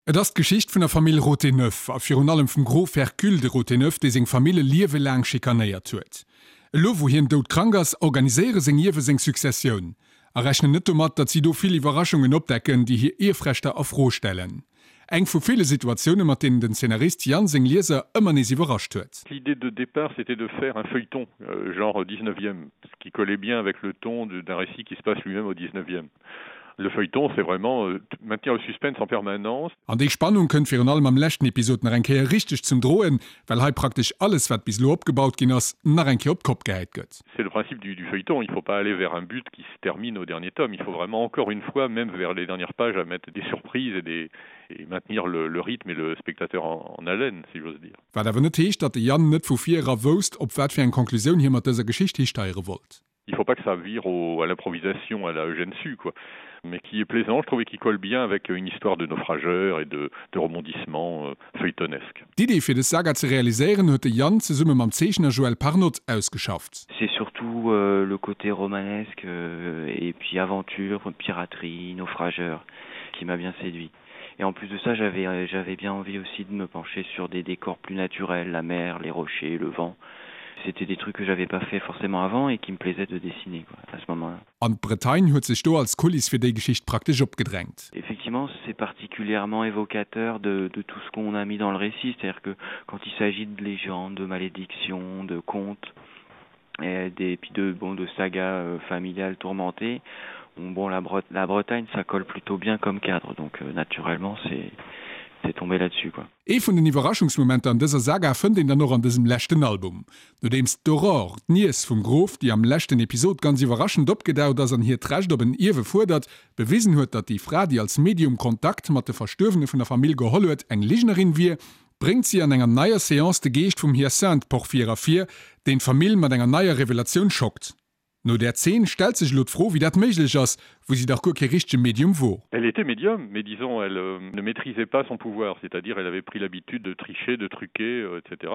Et ass d'Geschicht vun der Famill Rothéneuf a virun allem vum Grof Hercule de Rothéneuf, dee seng Famill e Liewe laang schikanéiert huet. Elo wou hien doudkrank ass, organiséiere seng Ierwe seng Successioun a rechnen net domat, datt si do vill Iwwerraschungen opdecken, déi hir Ierfrechter a Fro stellen. Eng vu ville Situatioune mat deenen den Zeenarist Yann seng Lieser ëmmer nees iwwerrascht huet. L'idée de départ c'était de faire un feuilleton euh, genre 19e, ce qui collait bien avec le ton d'un récit qui se passe lui-même au 19e. Le feuilleton c'est vraiment euh, maintenir le suspense en permanence. An déi Spannung kënnt virun allem am leschten Episod nach eng Kéier richteg zum Droen, well hei praktesch alles wat bis elo opgebaut ginn ass, nach eng Kéier op d'Kopp gehäit gëtt. C'est le principe du, du feuilleton, il faut pas aller vers un but qui se termine au dernier tome, il faut vraiment encore une fois, même vers les dernières pages, à mettre des surprises et, des, et maintenir le, le rythme et le spectateur en, en haleine, si j'ose dire. Wat awer net heescht, datt de Yann net vu vir era wousst, op wat fir eng Conclusioun hie mat dëser Geschicht histeiere wollt. Il faut pas que ça vire au, à l'improvisation à la Eugène Sue quoi mais qui est plaisant je trouvais qui colle bien avec une histoire de naufrageurs et de, de rebondissements euh, feuilletonesques. D'Idee fir dës Saga ze realiséieren huet de Yann zesumme mam Zeechner Joël Parnotte ausgeschafft. C'est surtout euh, le côté romanesque euh, et puis aventure, piraterie, naufrageur qui m'a bien séduit. Et en plus de ça, j'avais euh, j'avais bien envie aussi de me pencher sur des décors plus naturels, la mer, les rochers, le vent. C'était des trucs que j'avais pas fait forcément avant et qui me plaisait de dessiner quoi, à ce moment-là. An d'Bretagne huet sech do als Kuliss fir déi Geschicht praktesch opgedrängt. Effectivement, c'est particulièrement évocateur de, de tout ce qu'on a mis dans le récit, c'est-à-dire que quand il s'agit de légendes, de malédictions, de contes et des puis de bon de sagas euh, familiales tourmentées, on, bon la, Bre la Bretagne ça colle plutôt bien comme cadre, donc euh, naturellement c'est c'est tombé là-dessus quoi. Ee vun den Iwwerraschungsmomenter an dëser Saga fënnt een dann och an dësem leschten Album. Nodeems d'Aurore, d'Niess vum Grof, déi am leschten Episod ganz iwwerraschend opgedaucht ass an hiert Recht op en Ierwe fuerdert, bewisen huet, datt déi Fra, déi als Medium Kontakt mat de Verstuerwene vun der Famill geholl huet, eng Lignerin wier, bréngt si an enger neier Seance de Geescht vum Hyacinthe Porphyre ervir, deen d'Famill mat enger neier Revelatioun schockt. No där Zeen stellt sech elo d'Fro, wéi dat méiglech ass, wou si dach guer kee richtege Medium wor. Elle était médium, mais disons elle euh, ne maîtrisait pas son pouvoir, c'est-à-dire elle avait pris l'habitude de tricher, de truquer, euh, etc.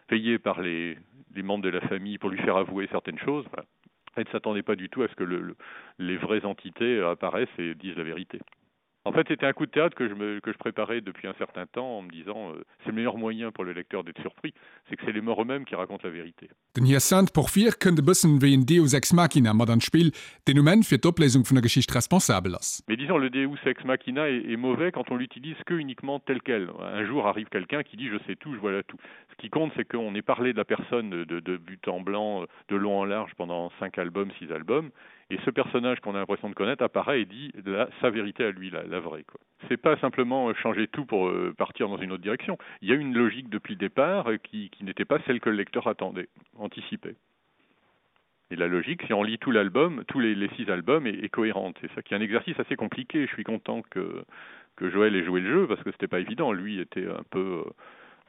Payée par les, les membres de la famille pour lui faire avouer certaines choses, voilà. Elle ne s'attendait pas du tout à ce que le, le, les vraies entités apparaissent et disent la vérité. En fait, c'était un coup de théâtre que je, me, que je préparais depuis un certain temps en me disant euh, c'est le meilleur moyen pour le lecteur d'être surpris, c'est que c'est les morts eux-mêmes qui racontent la vérité. Den Hyacinthe Porphyre kënnt e bëssen wéi en Deus ex machina mat an d'Spill, deen um Enn fir d'Opléisung vun der Geschicht responsabel ass. Mais disons le Deus ex machina est, est mauvais quand on l'utilise que uniquement tel quel. Un jour arrive quelqu'un qui dit je sais tout, je vois tout. Ce qui compte c'est qu'on ait parlé de la personne de, de, de but en blanc, de long en large pendant cinq albums, six albums et ce personnage qu'on a l'impression de connaître apparaît et dit la, sa vérité à lui la, la vraie quoi. C'est pas simplement euh, changer tout pour euh, partir dans une autre direction. Il y a une logique depuis le départ euh, qui, qui n'était pas celle que le lecteur attendait, anticipait. Et la logique, si on lit tout l'album, tous les, les six albums est, est cohérente. C'est ça qui est un exercice assez compliqué. Je suis content que, que Joël ait joué le jeu parce que c'était pas évident. Lui était un peu euh,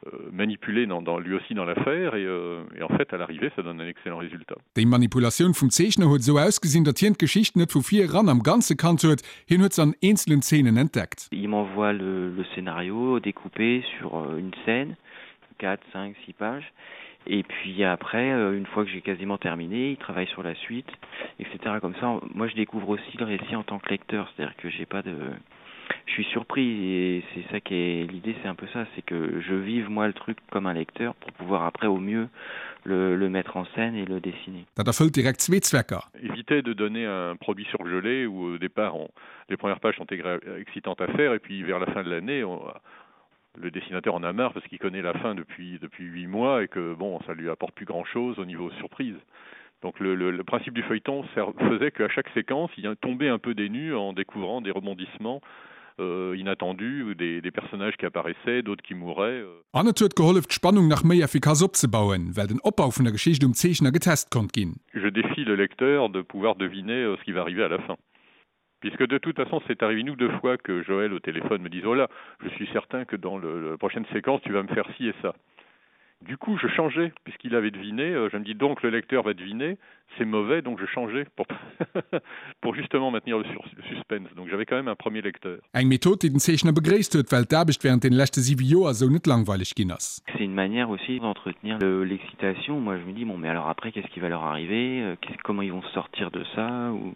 Euh, manipulé dans, dans lui aussi dans l'affaire et, euh, et en fait à l'arrivée ça donne un excellent résultat. Déi Manipulatioun vum Zeechner huet esou ausgesinn, datt hien d'Geschicht net vu vir eran am Ganze kannt huet, hien huet se an eenzelen Zeenen entdeckt. Il m'envoie le, le scénario découpé sur euh, une scène, 4, 5, 6 pages. Et puis après, euh, une fois que j'ai quasiment terminé, il travaille sur la suite, etc. Comme ça, moi je découvre aussi le récit en tant que lecteur, c'est-à-dire que j'ai pas de je suis surpris et c'est ça qui est l'idée c'est un peu ça c'est que je vive moi le truc comme un lecteur pour pouvoir après au mieux le, le mettre en scène et le dessiner. Dat erfëllt direkt zwee Zwecker. Éviter de donner un produit surgelé où au départ on, les premières pages sont excitantes à faire et puis vers la fin de l'année on le dessinateur en a marre parce qu'il connaît la fin depuis depuis huit mois et que bon ça lui apporte plus grand chose au niveau surprise. Donc le, le, le principe du feuilleton faisait qu'à chaque séquence il tombait un peu des nues en découvrant des rebondissements euh, inattendus ou des, des personnages qui apparaissaient, d'autres qui mouraient. Euh. An et huet gehollef d'Spannung nach méi effikass opzebauen, well den Opbau vun der Geschicht um Zeechner getest konnt ginn. Je défie le lecteur de pouvoir deviner euh, ce qui va arriver à la fin. Puisque de toute façon c'est arrivé une ou deux fois que Joël au téléphone me disait oh là je suis certain que dans le, la prochaine séquence tu vas me faire ci et ça. Du coup je changeais puisqu'il avait deviné, euh, je me dis donc le lecteur va deviner, c'est mauvais donc je changeais pour, pour justement maintenir le, sur, le suspense. Donc j'avais quand même un premier lecteur. Eng Method déi den Zeechner begréisst huet, well d'Aarbecht während den leschte 7 Joer esou net langweileg ginn ass. C'est une manière aussi d'entretenir l'excitation. Moi je me dis bon mais alors après qu'est-ce qui va leur arriver, euh, comment ils vont sortir de ça ou...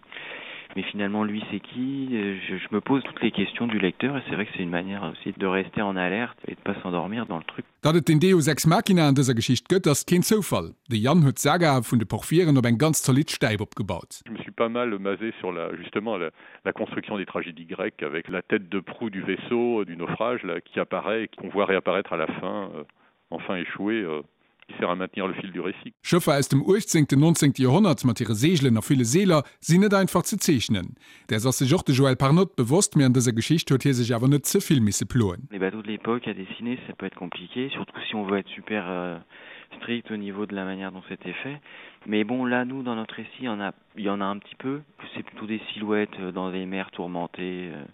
Mais finalement lui c'est qui je, je me pose toutes les questions du lecteur et c'est vrai que c'est une manière aussi de rester en alerte et de pas s'endormir dans le truc. Datt et den Deus ex machina an dëser Geschicht gëtt, ass keen Zoufall. De Yann huet d'Saga vun de Porphyren op eng ganz zolidd Stäip opgebaut. Je me suis pas mal basé sur la justement la, la construction des tragédies grecques avec la tête de proue du vaisseau du naufrage là, qui apparaît et qu'on voit réapparaître à la fin euh, enfin échoué euh, qui sert à maintenir le fil du récit. Schëffer aus dem 18., 19. Joerhonnert mat hire Seegelen a ville Seeler sinn net einfach ze zeechnen. Däers ass sech och de Joël Parnotte bewosst, mee an dëser Geschicht huet hie sech awer net ze vill misse ploen. Les bateaux de l'époque à dessiner, ça peut être compliqué, surtout si on veut être super euh, strict au niveau de la manière dont c'était fait. Mais bon, là, nous, dans notre récit, il y en a, il y en a un petit peu. C'est plutôt des silhouettes euh, dans des mers tourmentées. Euh,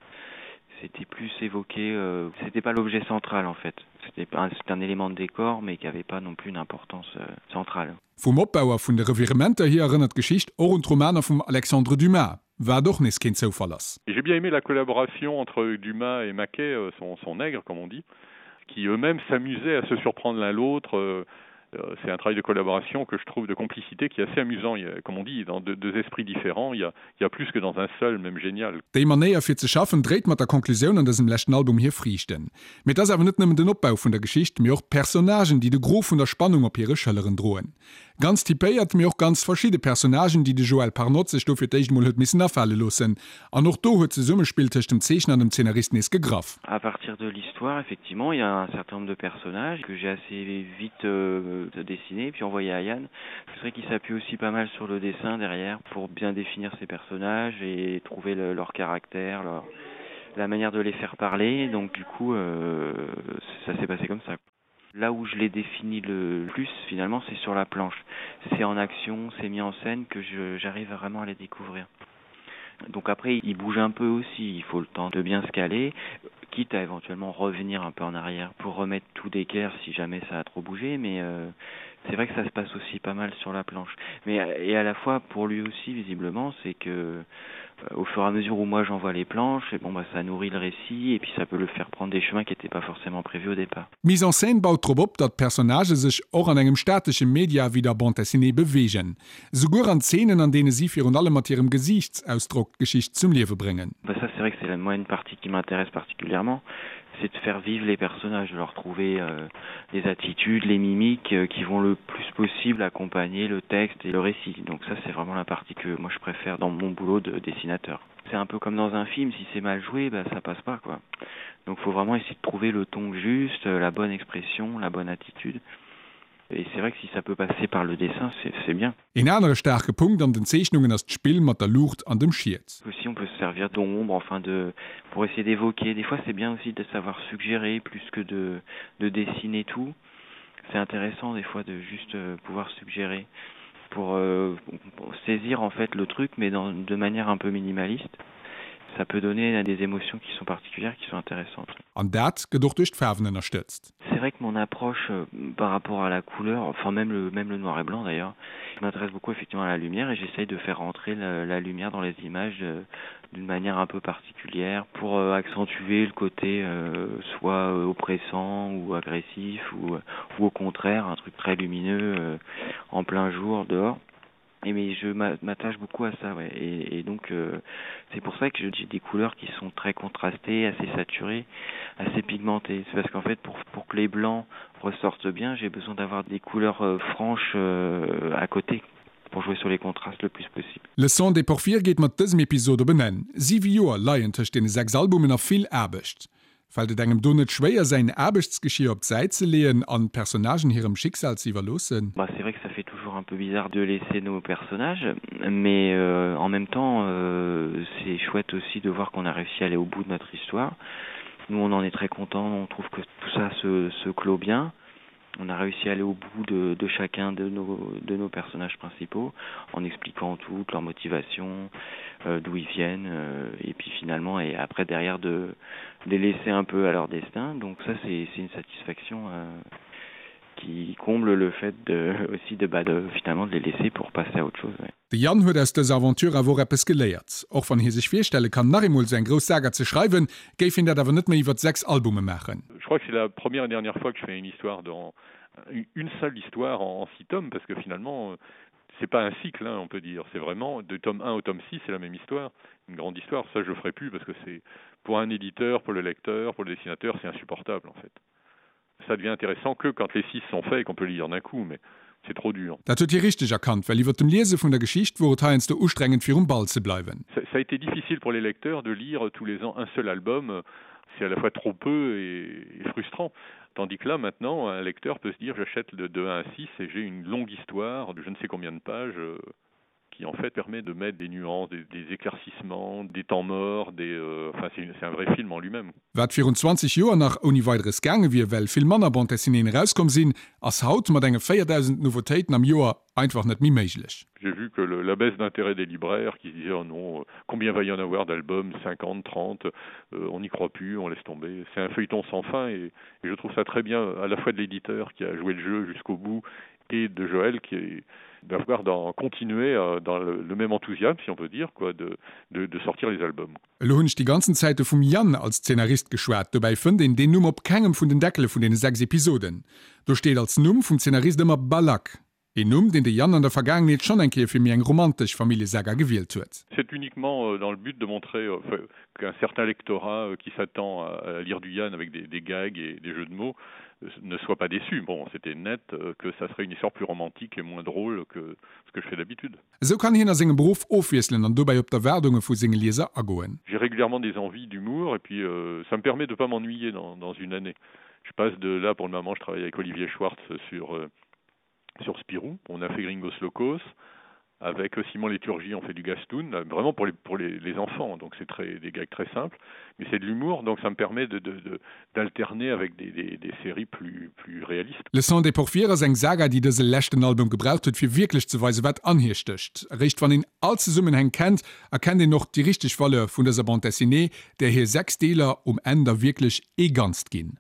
c'était plus évoqué, euh, c'était pas l'objet central en fait. C'était un, un élément de décor, mais qui avait pas non plus une importance euh, centrale. Vum Opbau a vun de Revirementer hier erënnert d'Geschicht och un d'Romaner vum Alexandre Dumas, wat och nees keen Zoufall ass. J'ai bien aimé la collaboration entre Dumas et Maquet, euh, son, son nègre comme on dit, qui eux-mêmes s'amusaient à se surprendre l'un l'autre. Euh, euh, c'est un travail de collaboration que je trouve de complicité qui est assez amusant. Il y a, comme on dit, dans deux, deux esprits différents, il y, a, il y a plus que dans un seul, même génial. Déi Manéier fir ze schaffen dréit mat der Konklusioun an dësem leschten Album hir Friichten. Mee et ass awer net nëmmen den Opbau vun der Geschicht, mee och d'Personnagen, déi de Gros vun der Spannung op hire Schëlleren droen. Ganz typéiert, mee och ganz verschidde Personnagen, déi de Joël Parnotte sech do fir d'éischt emol huet missen afale loossen. An och do huet d'Zesummespill tëscht dem Zeechner an dem Zeenarist nees gegraff. À partir de l'histoire, effectivement, il y a un certain nombre de personnages que j'ai assez vite euh, dessiné puis envoyé à Yann. C'est vrai qu'il s'appuie aussi pas mal sur le dessin derrière pour bien définir ses personnages et trouver le, leur caractère, leur, la manière de les faire parler. Donc du coup, euh, ça s'est passé comme ça. Là où je l'ai défini le plus finalement, c'est sur la planche. C'est en action, c'est mis en scène que j'arrive vraiment à les découvrir. Donc après, il bouge un peu aussi, il faut le temps de bien se caler, quitte à éventuellement revenir un peu en arrière pour remettre tout d'équerre si jamais ça a trop bougé, mais euh, c'est vrai que ça se passe aussi pas mal sur la planche. Mais et à la fois pour lui aussi visiblement, c'est que euh, au fur et à mesure où moi j'envoie les planches, et bon bah ça nourrit le récit et puis ça peut le faire prendre des chemins qui n'étaient pas forcément prévus au départ. D'Mise en scène baut drop op, datt d'Personnagë sech och an engem statesche Media wéi der Bande dessinée beweegen. Souguer an Zeenen, an deene si virun allem mat hirem Gesiichtsausdrock d'Geschicht zum Liewe bréngen. Bah ça c'est vrai que c'est la moi une partie qui m'intéresse particulièrement, c'est de faire vivre les personnages, de leur trouver euh, les attitudes, les mimiques euh, qui vont le plus possible accompagner le texte et le récit. Donc ça c'est vraiment la partie que moi je préfère dans mon boulot de dessinateur. C'est un peu comme dans un film, si c'est mal joué, bah, ça passe pas quoi. Donc faut vraiment essayer de trouver le ton juste, euh, la bonne expression, la bonne attitude. Et c'est vrai que si ça peut passer par le dessin, c'est bien. Een anere staarke Punkt an den Zeechnungen ass d'Spill mat der Luucht an dem Schiet. Aussi on peut se servir d'ombre, enfin de pour essayer d'évoquer. Des fois c'est bien aussi de savoir suggérer plus que de, de dessiner tout. C'est intéressant des fois de juste euh, pouvoir suggérer pour, euh, pour saisir en fait le truc mais dans, de manière un peu minimaliste. Ça peut donner des émotions qui sont particulières, qui sont intéressantes. An dat gëtt och duerch d'Faarwen ënnerstëtzt. C'est vrai que mon approche euh, par rapport à la couleur, enfin même le, même le noir et blanc d'ailleurs, je m'intéresse beaucoup effectivement à la lumière et j'essaye de faire rentrer la, la lumière dans les images euh, d'une manière un peu particulière pour euh, accentuer le côté euh, soit euh, oppressant ou agressif ou, ou au contraire un truc très lumineux euh, en plein jour dehors. Et mais je m'attache beaucoup à ça ouais. et, et donc euh, c'est pour ça que j'ai des couleurs qui sont très contrastées, assez saturées, assez pigmentées. C'est parce qu'en fait pour, pour que les blancs ressortent bien, j'ai besoin d'avoir des couleurs euh, franches euh, à côté pour jouer sur les contrastes le plus possible. Le sang des Porphyres geet mat dësem Episod op en Enn. 7 Joer leien tëscht deene 6 Albumen a vill Aarbecht. Fält et engem do net schwéier säin Aarbechtsgeschier op d'Säit ze leeën an d'Personnagen hirem Schicksal ze iwwerloossen? Bah c'est vrai que ça fait toujours un peu bizarre de laisser nos personnages, mais euh, en même temps euh, c'est chouette aussi de voir qu'on a réussi à aller au bout de notre histoire. Nous on en est très content, on trouve que tout ça se, se clôt bien on a réussi à aller au bout de, de chacun de nos, de nos personnages principaux en expliquant toute leur motivation, euh, d'où ils viennent euh, et puis finalement et après derrière de, de les laisser un peu à leur destin. Donc ça c'est une satisfaction euh, qui comble le fait de, aussi de, bah, de finalement de les laisser pour passer à autre chose. Ouais. De Yann huet aus dëser Aventure awer och eppes geléiert. Och wann hie sech virstelle kann, nach eemol esou eng grouss Saga ze schreiwen, géif hien dat awer net méi iwwert 6 Albume maachen. Je crois que c'est la première et dernière fois que je fais une histoire dans une seule histoire en, en six tomes parce que finalement. C'est pas un cycle hein, on peut dire, c'est vraiment de tome 1 au tome 6 c'est la même histoire, une grande histoire, ça je le ferai plus parce que c'est pour un éditeur, pour le lecteur, pour le dessinateur, c'est insupportable en fait. Ça devient intéressant que quand les 6 sont faits et qu'on peut lire d'un coup mais c'est trop dur. Dat huet hie richteg erkannt, well iwwer dem Liese vun der Geschicht wor et heiansdo ustrengend virum Ball ze bleiwen. Ça a été difficile pour les lecteurs de lire tous les ans un seul album, c'est à la fois trop peu et, et frustrant. Tandis que là maintenant un lecteur peut se dire j'achète de 2 à 6 et j'ai une longue histoire de je ne sais combien de pages euh, qui en fait permet de mettre des nuances, des, des éclaircissements, des temps morts, des euh, enfin c'est un vrai film en lui-même. Wat virun 20 Joer nach ouni Weideres gaange wier, well vill manner Bande dessinéeën erauskomm sinn, ass haut mat enge 4.000 Nouveautéiten am Joer einfach net méi méiglech. J'ai vu que le, la baisse d'intérêt des libraires qui se disaient oh non, euh, combien va y en avoir d'albums 50, 30, euh, on n'y croit plus, on laisse tomber. C'est un feuilleton sans fin et, et je trouve ça très bien à la fois de l'éditeur qui a joué le jeu jusqu'au bout et de Joël qui est d'avoir d'en continuer euh, dans le, le même enthousiasme si on peut dire quoi de, de, de sortir les albums. Elo hunn ech déi ganzen Zäite vum Yann als Zeenarist geschwat, dobäi fënnt een deen Numm op kengem vun den Deckele vun deene 6 Episoden. Do steet als Numm vum Zeenarist ëmmer Balak, een Numm, deen de Yann an der Vergaangenheet schonn eng Kéier fir méi eng romantesch Familljesaga gewielt huet. C'est uniquement euh, dans le but de montrer euh, qu'un certain lectorat euh, qui s'attend à lire du Yann avec des, des gags et des jeux de mots ne soit pas déçu. Bon, c'était net que ça serait une histoire plus romantique et moins drôle que ce que je fais d'habitude. Esou kann hien a sengem Beruff ofwiesselen an dobäi op d'Erwaardunge vu senge Lieser agoen. J'ai régulièrement des envies d'humour et puis euh, ça me permet de pas m'ennuyer dans, dans une année. Je passe de là pour le moment je travaille avec Olivier Schwartz sur euh, sur Spirou, on a fait Gringos Locos avec Simon Léturgie on fait du Gastoun vraiment pour les pour les, les enfants donc c'est très des gags très simples mais c'est de l'humour donc ça me permet de d'alterner avec des, des, des séries plus plus réalistes. Le sang des Porphyres ass eng Saga déi dëse leschten Album gebraucht huet fir wierklech ze weisen wat an hir stécht. Eréischt wann een all Zesummenhäng kennt, erkennt een och déi richteg Valeur vun dëser Bande Dessinée, där hir 6 Deeler um Enn da wierklech ee Ganzt ginn.